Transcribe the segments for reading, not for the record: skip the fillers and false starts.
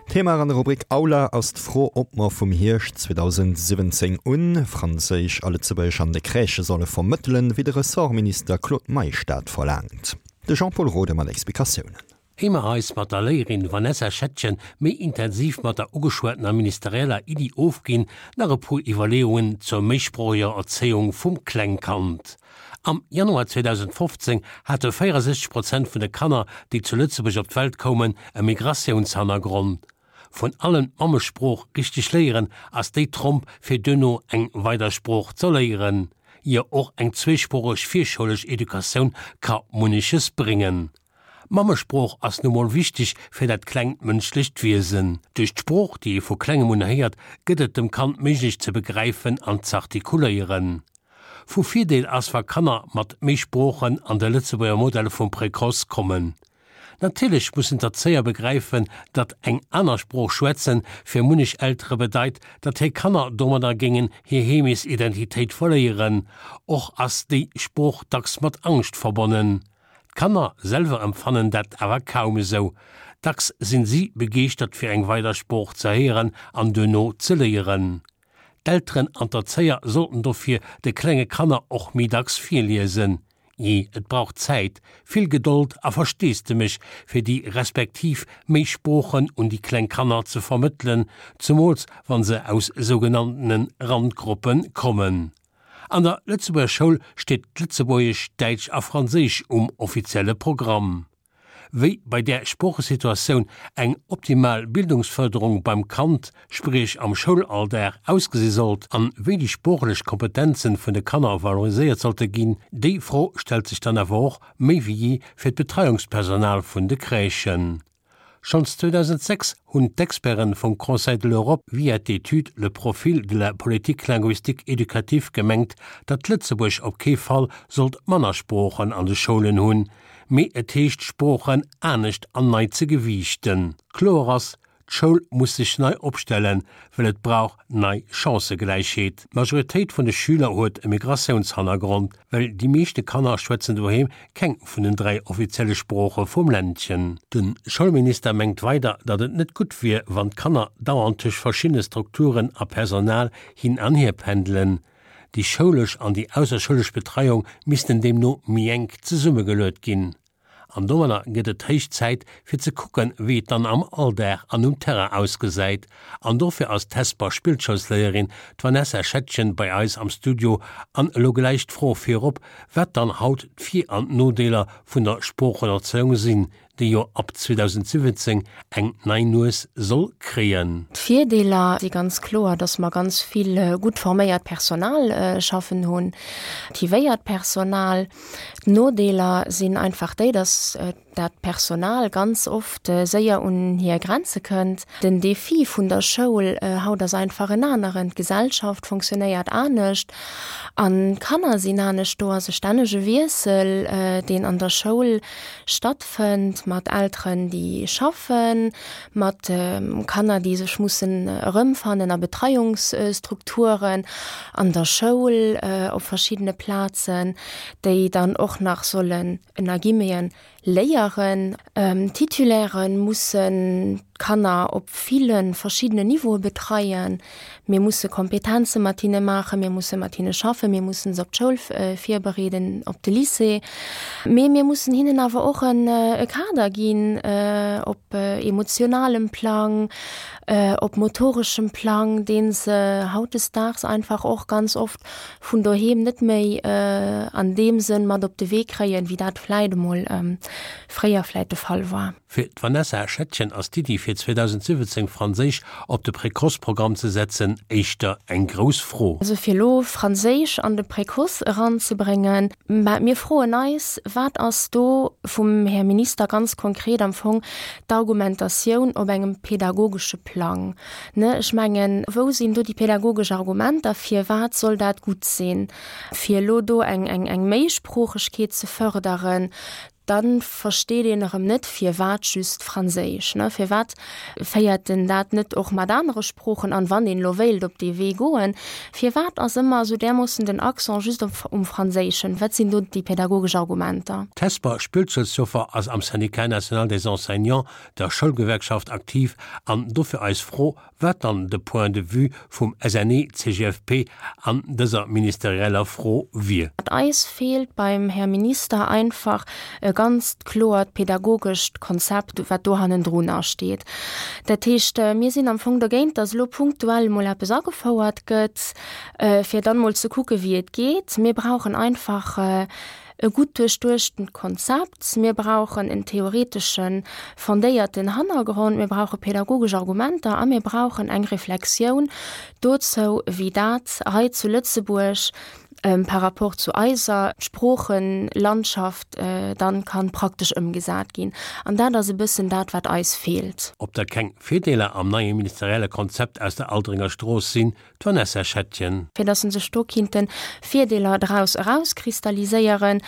Thema an der Rubrik Aula ass d'Fro, ob mer vum Hierscht 2017 un Franséisch a Lëtzebuergesch an de Crèchë solle vermëttelen, wéi de Ressortminister Claude Meisch dat verlaangt. De Jean-Pol Rode mat Explikatiounen. Éier mer eis mat der Léierin Vanessa Schettgen méi intensiv mat der ugeschwattener ministerieller Iddi ofginn, nach e puer Iwwerleeungen zur méisproocheger Erzéiung vum Klengkand. Am Januar 2015 hate 64 Prozent vun de Kanner, déi zu Lëtzebuerg op d'Welt koumen, e Migratiounshannergrond. Vun allen d'Mammesprooch richteg léieren ass déi Tromp fir duerno eng weider Sprooch ze léieren. Jo, och eng zweesproocheg virschoulesch Educatioun ka munneches bréngen. D'Mammesprooch ass nu mol wichteg fir dat klengt mënschlecht Wiesen. Duerch d'Sprooch, déi ee vu klengem un héiert, gëtt et dem Kand méiglech ze begräifen an z'artikuléieren. Vu Virdeel ass, wa Kanner mat méi Sproochen an de Lëtzebuerger Modell vum Précoce kommen. Natierlech mussen d'Erzéier begräifen, datt eng aner Sprooch schwätzen fir munnech Eltere bedeit, datt hir Kanner domadder géingen hir Heemesidentitéit verléieren. Och ass déi Sprooch dacks mat Angscht verbonnen. D'Kanner selwer empfannen dat awer kaum esou. Dacks sinn si begeeschtert fir eng weider Sprooch ze héieren an duerno ze léieren. D'Elteren an d'Erzéier sollten dofir de klenge Kanner och méi dacks virliesen. Jee, et brauch Zäit, vill Gedold a Versteesdemech, fir déi respektiv méi Sproochen un déi kleng Kanner ze vermëttelen, zumools wann se aus sougenanntene Randgruppe kommen. An der Lëtzebuerger Schoul steet d'Lëtzebuergesch, Däitsch a Franséisch um offizielle Programm. Wéi bei där Sproochesituatioun eng optimal Bildungsfërderung beim Kand, spriech am Schoulalldag, ausgesi sollt an wéi déi sproochlech Kompetenzen vun de Kanner valoriséiert sollte ginn, déi Fro stellt sech dann awer och méi wéi jee fir d'Betreiungspersonal vun de Crèchen. Schonns 2006 hunn d'Experten vum Conseil de l'Europe via d'Etüd Le profil de la politique linguistique éducative gemengt, datt Lëtzebuerg op kee Fall sollt manner Sproochen an de Schoulen hunn, mee et heescht d'Sproochen anescht an nei ze gewiichten. Kloer ass, d'Schoul muss sech nei opstellen, well et brauch nei Chancëgläichheet. D'Majoritéit vun de Schüler huet e Migratiounshannergrond, well déi meeschte Kanner schwätzen doheem keng vun den 3 offizielle Sprooche vum Ländchen. De Schoulminister mengt weider, datt et net gutt wier, wann d'Kanner dauernd tëscht verschiddene Strukturen a Personal hin an hier pendelen. Déi schoulesch an déi ausserschoulesch Betreiung missten deemno méi enk zesummegeluet ginn. An domadder gëtt et héich Zäit, fir ze kucken, wéi et dann am Alldag an um Terrain ausgesäit. An dofir ass d'Hesper Spillschoulsléierin, d'Vanessa Schettgen, bei eis am Studio. An elo gläich d'Fro virop, wat dann haut d'Vir an d'Nodeeler vun der Sproochenerzéiung sinn, déi jo ab 2017 eng nei Nues soll kréien. D'Virdeeler si ganz kloer, dass mer ganz vill gutt forméiert Personal schaffen hunn, motivéiert Personal. D'Nodeeler sinn einfach déi, dass dat Personal ganz oft séier un hir Grenze kënnt. Den Defi vun der Schoul haut ass einfach en aneren. D'Gesellschaft fonctionnéiert anescht an d'Kanner sinn anescht. Do ass e stännege Wiessel, deen an der Schoul stattfënnt, mat Elteren, déi schaffen, mat Kanner, déi sech mussen erëmfannen a Betreiungsstrukturen, an der Schoul, op verschiddene Plazen, déi dann och nach sollen, ënner Guillemeten, léieren. D'Titulaire mussen d'Kanner op ville verschiddenen Niveaue betreien. Mir musse Kompetenze mat hinne maachen, mir musse mat hinne schaffen, mir mussen se op d'Schoul virbereeden, op de Lycée. Mee mir mussen hinnen awer och e Kader ginn op emotionalem Plang, op motoreschem Plang, dee se hautdesdaags einfach och ganz oft vun doheem net méi an deem Sënn mat op de Wee kréien, wéi dat vläit emol fréier vläit de Fall war. Fir d'Vanessa Schettgen ass d'Iddi fir 2017 Franséisch op de Précoce-Programm ze setzen éischter eng grouss Fro. Also fir elo Franséisch an de Précoce eranzebréngen, mä mir froen eis, wat ass do vum Här Minister ganz konkret am Fong d'Argumentatioun op engem pedagogesche Plang? Ne, ech mengen, wou sinn do déi pädagogesch Argumenter, firwat soll dat gutt sinn, fir elo do eng, eng, eng Méisproochegkeet ze förderen? Da versteet een erëm net, firwat just Franséisch, ne? Firwat féiert en dat net och mat anere Sproochen an, wann een elo wéilt op dee Wee goen? Firwat ass ëmmer esou därmoossen den Accent just op um Franséischen? Wat sinn do déi pädagogesch Argumenter? D'Hesper Spillzelsjoffer ass am Syndicat national des enseignants, der Schoulgewerkschaft, aktiv an dofir eis Fro, wat dann de Point de vue vum SNE-CGFP an dëser ministerieller Fro wier. Eis feelt beim Här Minister einfach e ganzt kloert pädagogescht Konzept, wat do hannendrunner steet. Dat heescht, mir sinn am Fong dogéint, datt elo punktuell emol eppes agefouert gëtt, fir dann emol ze kucke wéi et geet. Mir brauchen einfach e gutt duerchduechtent Konzept, mir brauchen en theoreteschen, fondéierten Hannergrond, mir brauche pädagogesch Argumenter a mir brauchen eng Reflexioun dozou, wéi dat hei zu Lëtzebuerg par rapport zu eiser Sproochenlandschaft dann kann praktesch ëmgesat ginn. An dat ass e bëssen dat, wat eis feelt. Ob da keng Virdeeler am neie ministerielle Konzept aus der Aldringer Strooss sinn, D'Vanessa Schettgen. Fir dass se sech do kinnten Virdeeler draus erauskristalliséieren,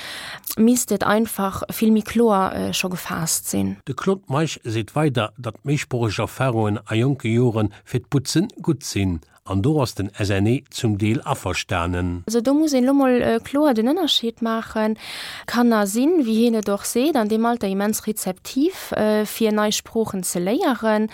misst et einfach vill méi kloer scho gefaasst sinn. De Claude Meisch seet weider, datt méisproocheg Erfarungen a jonke Jore fir d'Butzen gutt sinn. An do ass den SNE zum Deel averstanen. Also do muss een elo mol kloer den Ënnerscheed maachen. Kanner sinn, wéi hien et och seet, an deem Alter immens rezeptiv fir nei Sproochen ze léieren.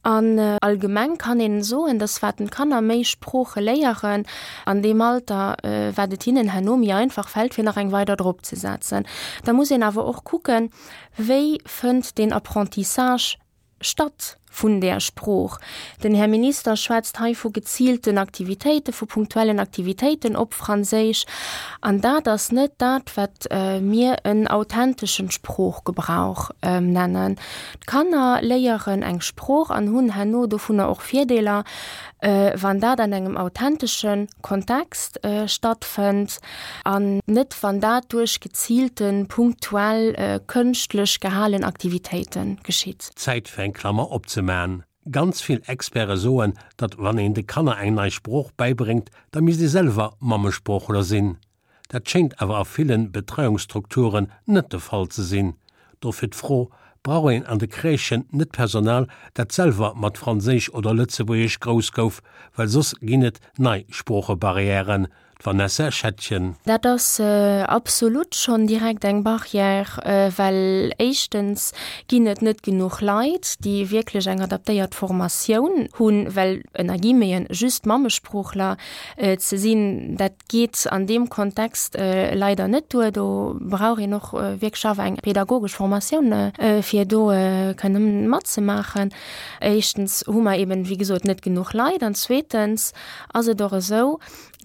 An allgemeng kann een soen, dass wat d'Kanner méi Sprooche léieren an deem Alter, wat et hinnen herno méi einfach fält, fir nach eng weider drop ze setzen. Da muss een awer och kucken, wéi fënnt deen Apprentissage statt vun där Sprooch. Den Här Minister schwätzt hei vu geziilten Aktivitéiten, vu punktuellen Aktivitéiten op Franséisch. An dat ass net dat, wat mir en authenteschen Sproochgebrauch nennen. D'Kanner léieren eng Sprooch an hunn herno dovunner och Virdeeler, wann dat an engem authentesche Kontext stattfënnt an net wann dat duerch geziilten, punktuell, kënschtlech gehalen Aktivitéite geschitt. Zäit fir eng Klammer opzeman. Ganz vill Experte soen, datt wann een de Kanner eng nei Sprooch bäibréngt, da misst ee selwer Mammesproochler sinn. Dat schéngt awer a ville Betreiungsstrukturen net de Fall ze sinn. Dofir d'Fro, Brauch een an de Crèchen net Personal, dat selwer mat Franséisch oder Lëtzebuergesch grouss gouf, well soss ginn et nei Sproochebarrièren? D'Vanessa Schettgen. Dat ass absolut schonn direkt eng Barrière, well éischtens ginn et net genuch Leit, déi wierklech eng adaptéiert Formatioun hunn, well ënner Guillemeten just Mammesproochler ze sinn, dat geet an deem Kontext leider net duer. Do brauch een och wierklech awer eng pädagogesch Formatioun, fir do kënnen matzemaachen. Éischtens hu mer eben, wéi gesot, net genuch Leit an zweetens ass et och esou,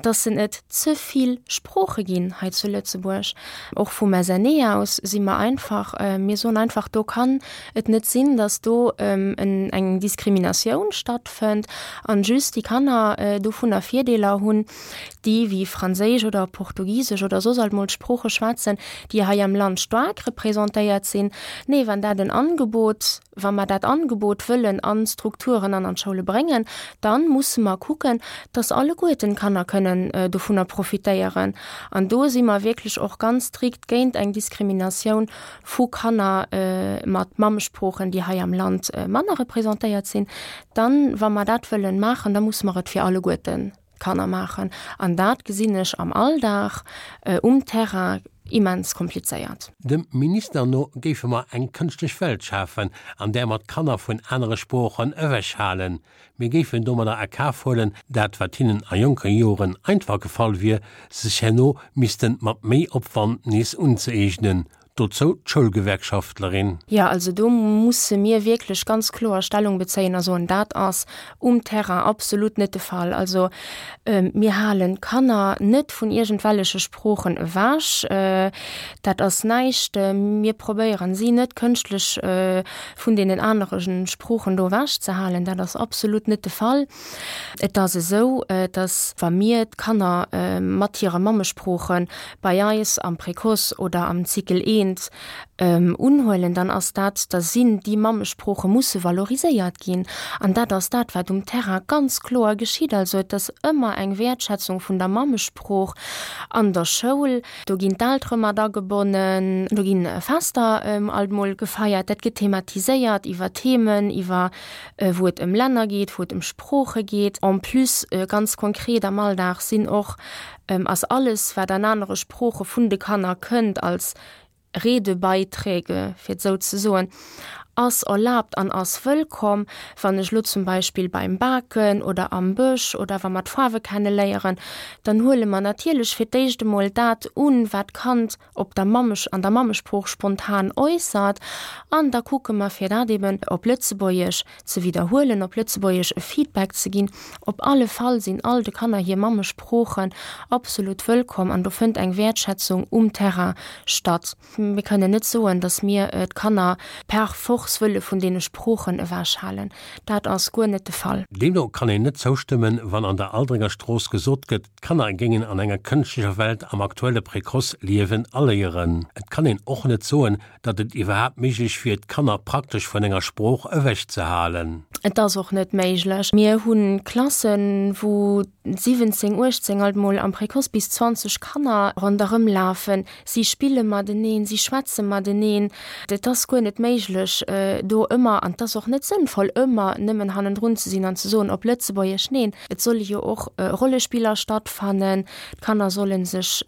dass en et ze vill Sprooche ginn hei zu Lëtzebuerg. Och vum SNE aus si mer einfach, mir soen einfach, do kann et net sinn, dass do eng Diskriminatioun stattfënnt an just déi Kanner dovunner Virdeeler hunn, déi wéi Franséisch oder Portugisesch oder soss alt mol Sprooche schwätzen, déi hei am Land staark representéiert sinn. Nee, wann dat en Angebot, wa mer dat Angebot wëllen an d'Strukturen an an d'Schoule bréngen, da musse mer kucken, dass alleguerten d'Kanner kënnen dovunner profitéieren. An do si mer wierklech och ganz strikt géint eng Diskriminatioun vu Kanner mat Mammesproochen, déi hei am Land manner representéiert sinn. Dann, wa mer dat wëllen maachen, da musse mer et fir alleguerten Kanner maachen. An dat gesinn ech am Alldag um Terrain immens komplizéiert. Dem Minister no géife mer eng kënschtlech Welt schafen, an där mer d'Kanner vun anere Sproochen ewechhalen. Mir géifen domadder a Kaf huelen, dat wat hinnen a jonke Joren einfach gefall wier, sech herno misste mat méi Opwand nees unzëeegnen. Dozou d'Schoulgewerkschaftlerin. Jo, also do musse mir wierklech ganz kloer Stellung bezéien a soen, dat ass um Terrain absolut net de Fall. Also mir halen d'Kanner net vun iergendwelleche Sproochen ewech. Dat ass näischt. Mir probéieren si net kënschtlech vun deenen anere Sproochen do ewech ze halen. Dat ass absolut net de Fall. Et ass esou, dass wa mir d'Kanner mat hire Mammesprooche bei eis am Précoce oder am Cycle I. kéint unhuelen, dann ass dat, da sinn déi Mammesprooche musse valoriséiert ginn. An dat ass dat, wat um Terrain ganz kloer geschitt. Also et ass ëmmer eng Wäertschätzung vun der Mammesprooch an der Schoul. Do ginn d'Eltere mat agebonnen, do gi Fester alt mol gefeiert, dat gëtt thematiséiert iwwer Themen, iwwer wou et ëm Länner geet, wou et ëm Sprooche geet. En plus ganz konkret am Alldag sinn och, ass alles wat an anere Sprooche vun de Kanner kënnt als Redebeiträge, fir et esou ze soen, ass erlaabt an ass wëllkomm. Wann ech elo zum Beispill beim Baken oder am Bësch oder wa mer d'Faarwe kenne léieren, dann huele mer natierlech fir d'éischt emol dat un, wat d'Kand op der Mammesch an der Mammesprooch spontan äussert an da kucke mer, fir dat eben op Lëtzebuergesch ze widderhuelen, op Lëtzebuergesch e Feedback ze ginn. Op alle Fall sinn all de Kanner hir Mammesproochen absolut wëllkomm an do fënnt eng Wäertschätzung um Terrain statt. Mir kënnen net soen, datt mir d'Kanner per force wëlle vun deene Sproochen ewechhalen. Dat ass guer net de Fall. Deemno kann een net zoustëmmen, wann an der Aldringer Strooss gesot gëtt, d'Kanner géingen an enger kënschtlecher Welt am aktuelle Précoce liewen a léieren. Et kann een och net soen, datt et iwwerhaapt méiglech wier, d'Kanner praktesch vun enger Sprooch ewech ze halen. Et ass och net méiglech. Mir hu Klassen, wou 17, 18, alt mol am Précoce bis 20 Kanner ronderëm lafen. Si spille mateneen, si schwätze mateneen. Et ass guer net méiglech, do ëmmer, an et ass och net sënnvoll, ëmmer nëmmen hannendrun ze sinn an ze soen, op Lëtzebuergesch. Neen, et solle jo och Rollespiller stattfannen. D'Kanner solle sech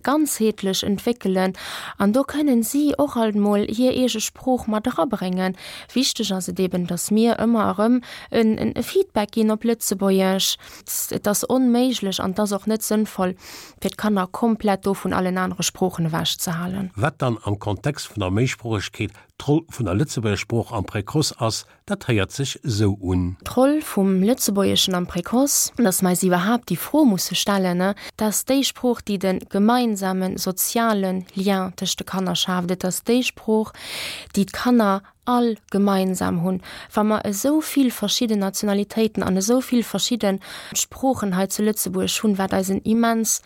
ganzheetlech entwéckelen an do kënnen si och alt mol hir eege Sprooch mat erabréngen. Wichteg ass et eben, datt mir ëmmer erëm e Feedback ginn op Lëtzebuergesch. Et ass onméiglech an et ass och net sënnvoll, fir d'Kanner komplett do vun allen anere Sproochen ewechzehalen. Wat dann am Kontext vun der Méisproochegkeet d'Roll vun der Lëtzebuerger Sprooch am Précoce ass, Dat héiert sech esou un. D'Roll vum Lëtzebuergeschen am Précoce, dass mer eis iwwerhaapt déi Fro musse stellen, dat ass déi Sprooch, déi de gemeinsame soziale Lien tëscht de Kanner schaaft. Et ass déi Sprooch, déi d'Kanner all gemeinsam hunn. Wa mer esou vill verschidden Nationalitéiten an esou vill verschidde Sproochen hei zu Lëtzebuerg hunn, wat eis en immens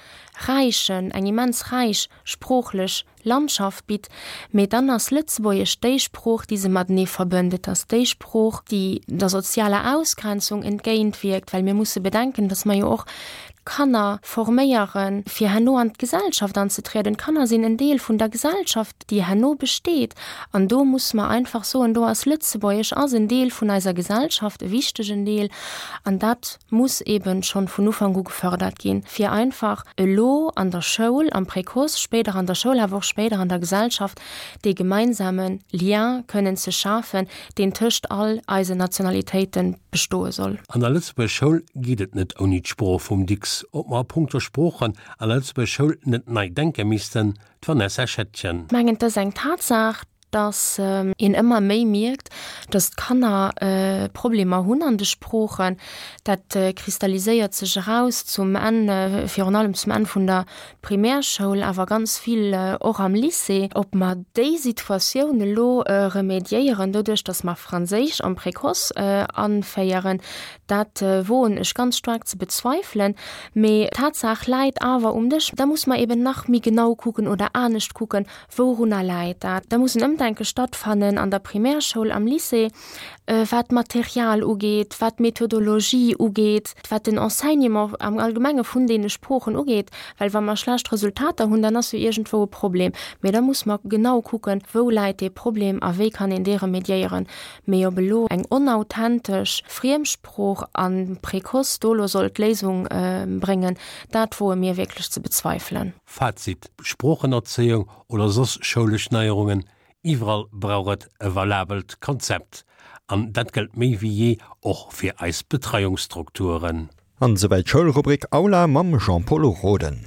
räichen, eng immens räich sproochlech Landschaft bitt, mee dann ass Lëtzebuergesch déi Sprooch, déi se matenee verbënnt. Et ass déi Sprooch, déi der sozialer Ausgrenzung entgéintwierkt, well mir musse bedenken, dass mer jo och d'Kanner forméieren, fir herno an d'Gesellschaft anzetrieden. D'Kanner sinn en Deel vun der Gesellschaft, déi herno besteet. An do musse mer einfach soen, do ass Lëtzebuergesch ass en Deel vun eiser Gesellschaft, e wichtegen Deel. An dat muss eben schonn vun Ufank u gefördert ginn, fir einfach elo an der Schoul, am Précoce, spéider an der Schoul, awer och spéider an der Gesellschaft, dee gemeinsame Lien kënnen ze schafen, deen tëscht all eisen Nationalitéite bestoe soll. An der Lëtzebuerger Schoul geet et net ouni d'Sprooch vum Dicks. Ob mer a punkto Sproochen an der Lëtzebuerger Schoul net nei denke missten? D'Vanessa Schettgen. Ech mengen, et ass eng Tatsaach, dass een ëmmer méi mierkt, dass d'Kanner Problemer hunn an de Sproochen. Dat kristalliséiert sech eraus zum Enn, virun allem zum Enn vun der Primärschoul, awer ganz vill och am Lycée. Ob mer déi Situatioun elo remédiéieren doduerch, dass mer Franséisch am Précoce anféieren, dat woen ech ganz staark ze bezweifelen. Mee d'Tatsaach läit awer um Dësch. Da muss mer eben nach méi genau kucken oder anescht kucken, Wourunner läit dat? Da muss en Ëmdenke stattfannen an der Primärschoul, am Lycée, wat d'Material ugeet, wat d'Methodologie ugeet, wat den Enseignement am Allgemenge vun deene Sproochen ugeet. Well wa mer schlecht Resultater hunn, dann ass jo iergendwou e Problem. Mee da muss mer genau kucken, wou läit dee Problem a wéi kann een dee remediéieren. Mee ob elo eng onauthentesch Friemsprooch am Précoce do elo soll d'Léisung bréngen, dat woe mir wierklech ze bezweifelen. Fazit, Sproochenerzéiung oder soss schoulesch Neierungen, iwwerall brauch et e valabelt Konzept. An dat gëllt méi wéi jee och fir eis Betreiungsstrukturen. An esouwäit d'Schoulrubrik Aula mam Jean-Pol Roden.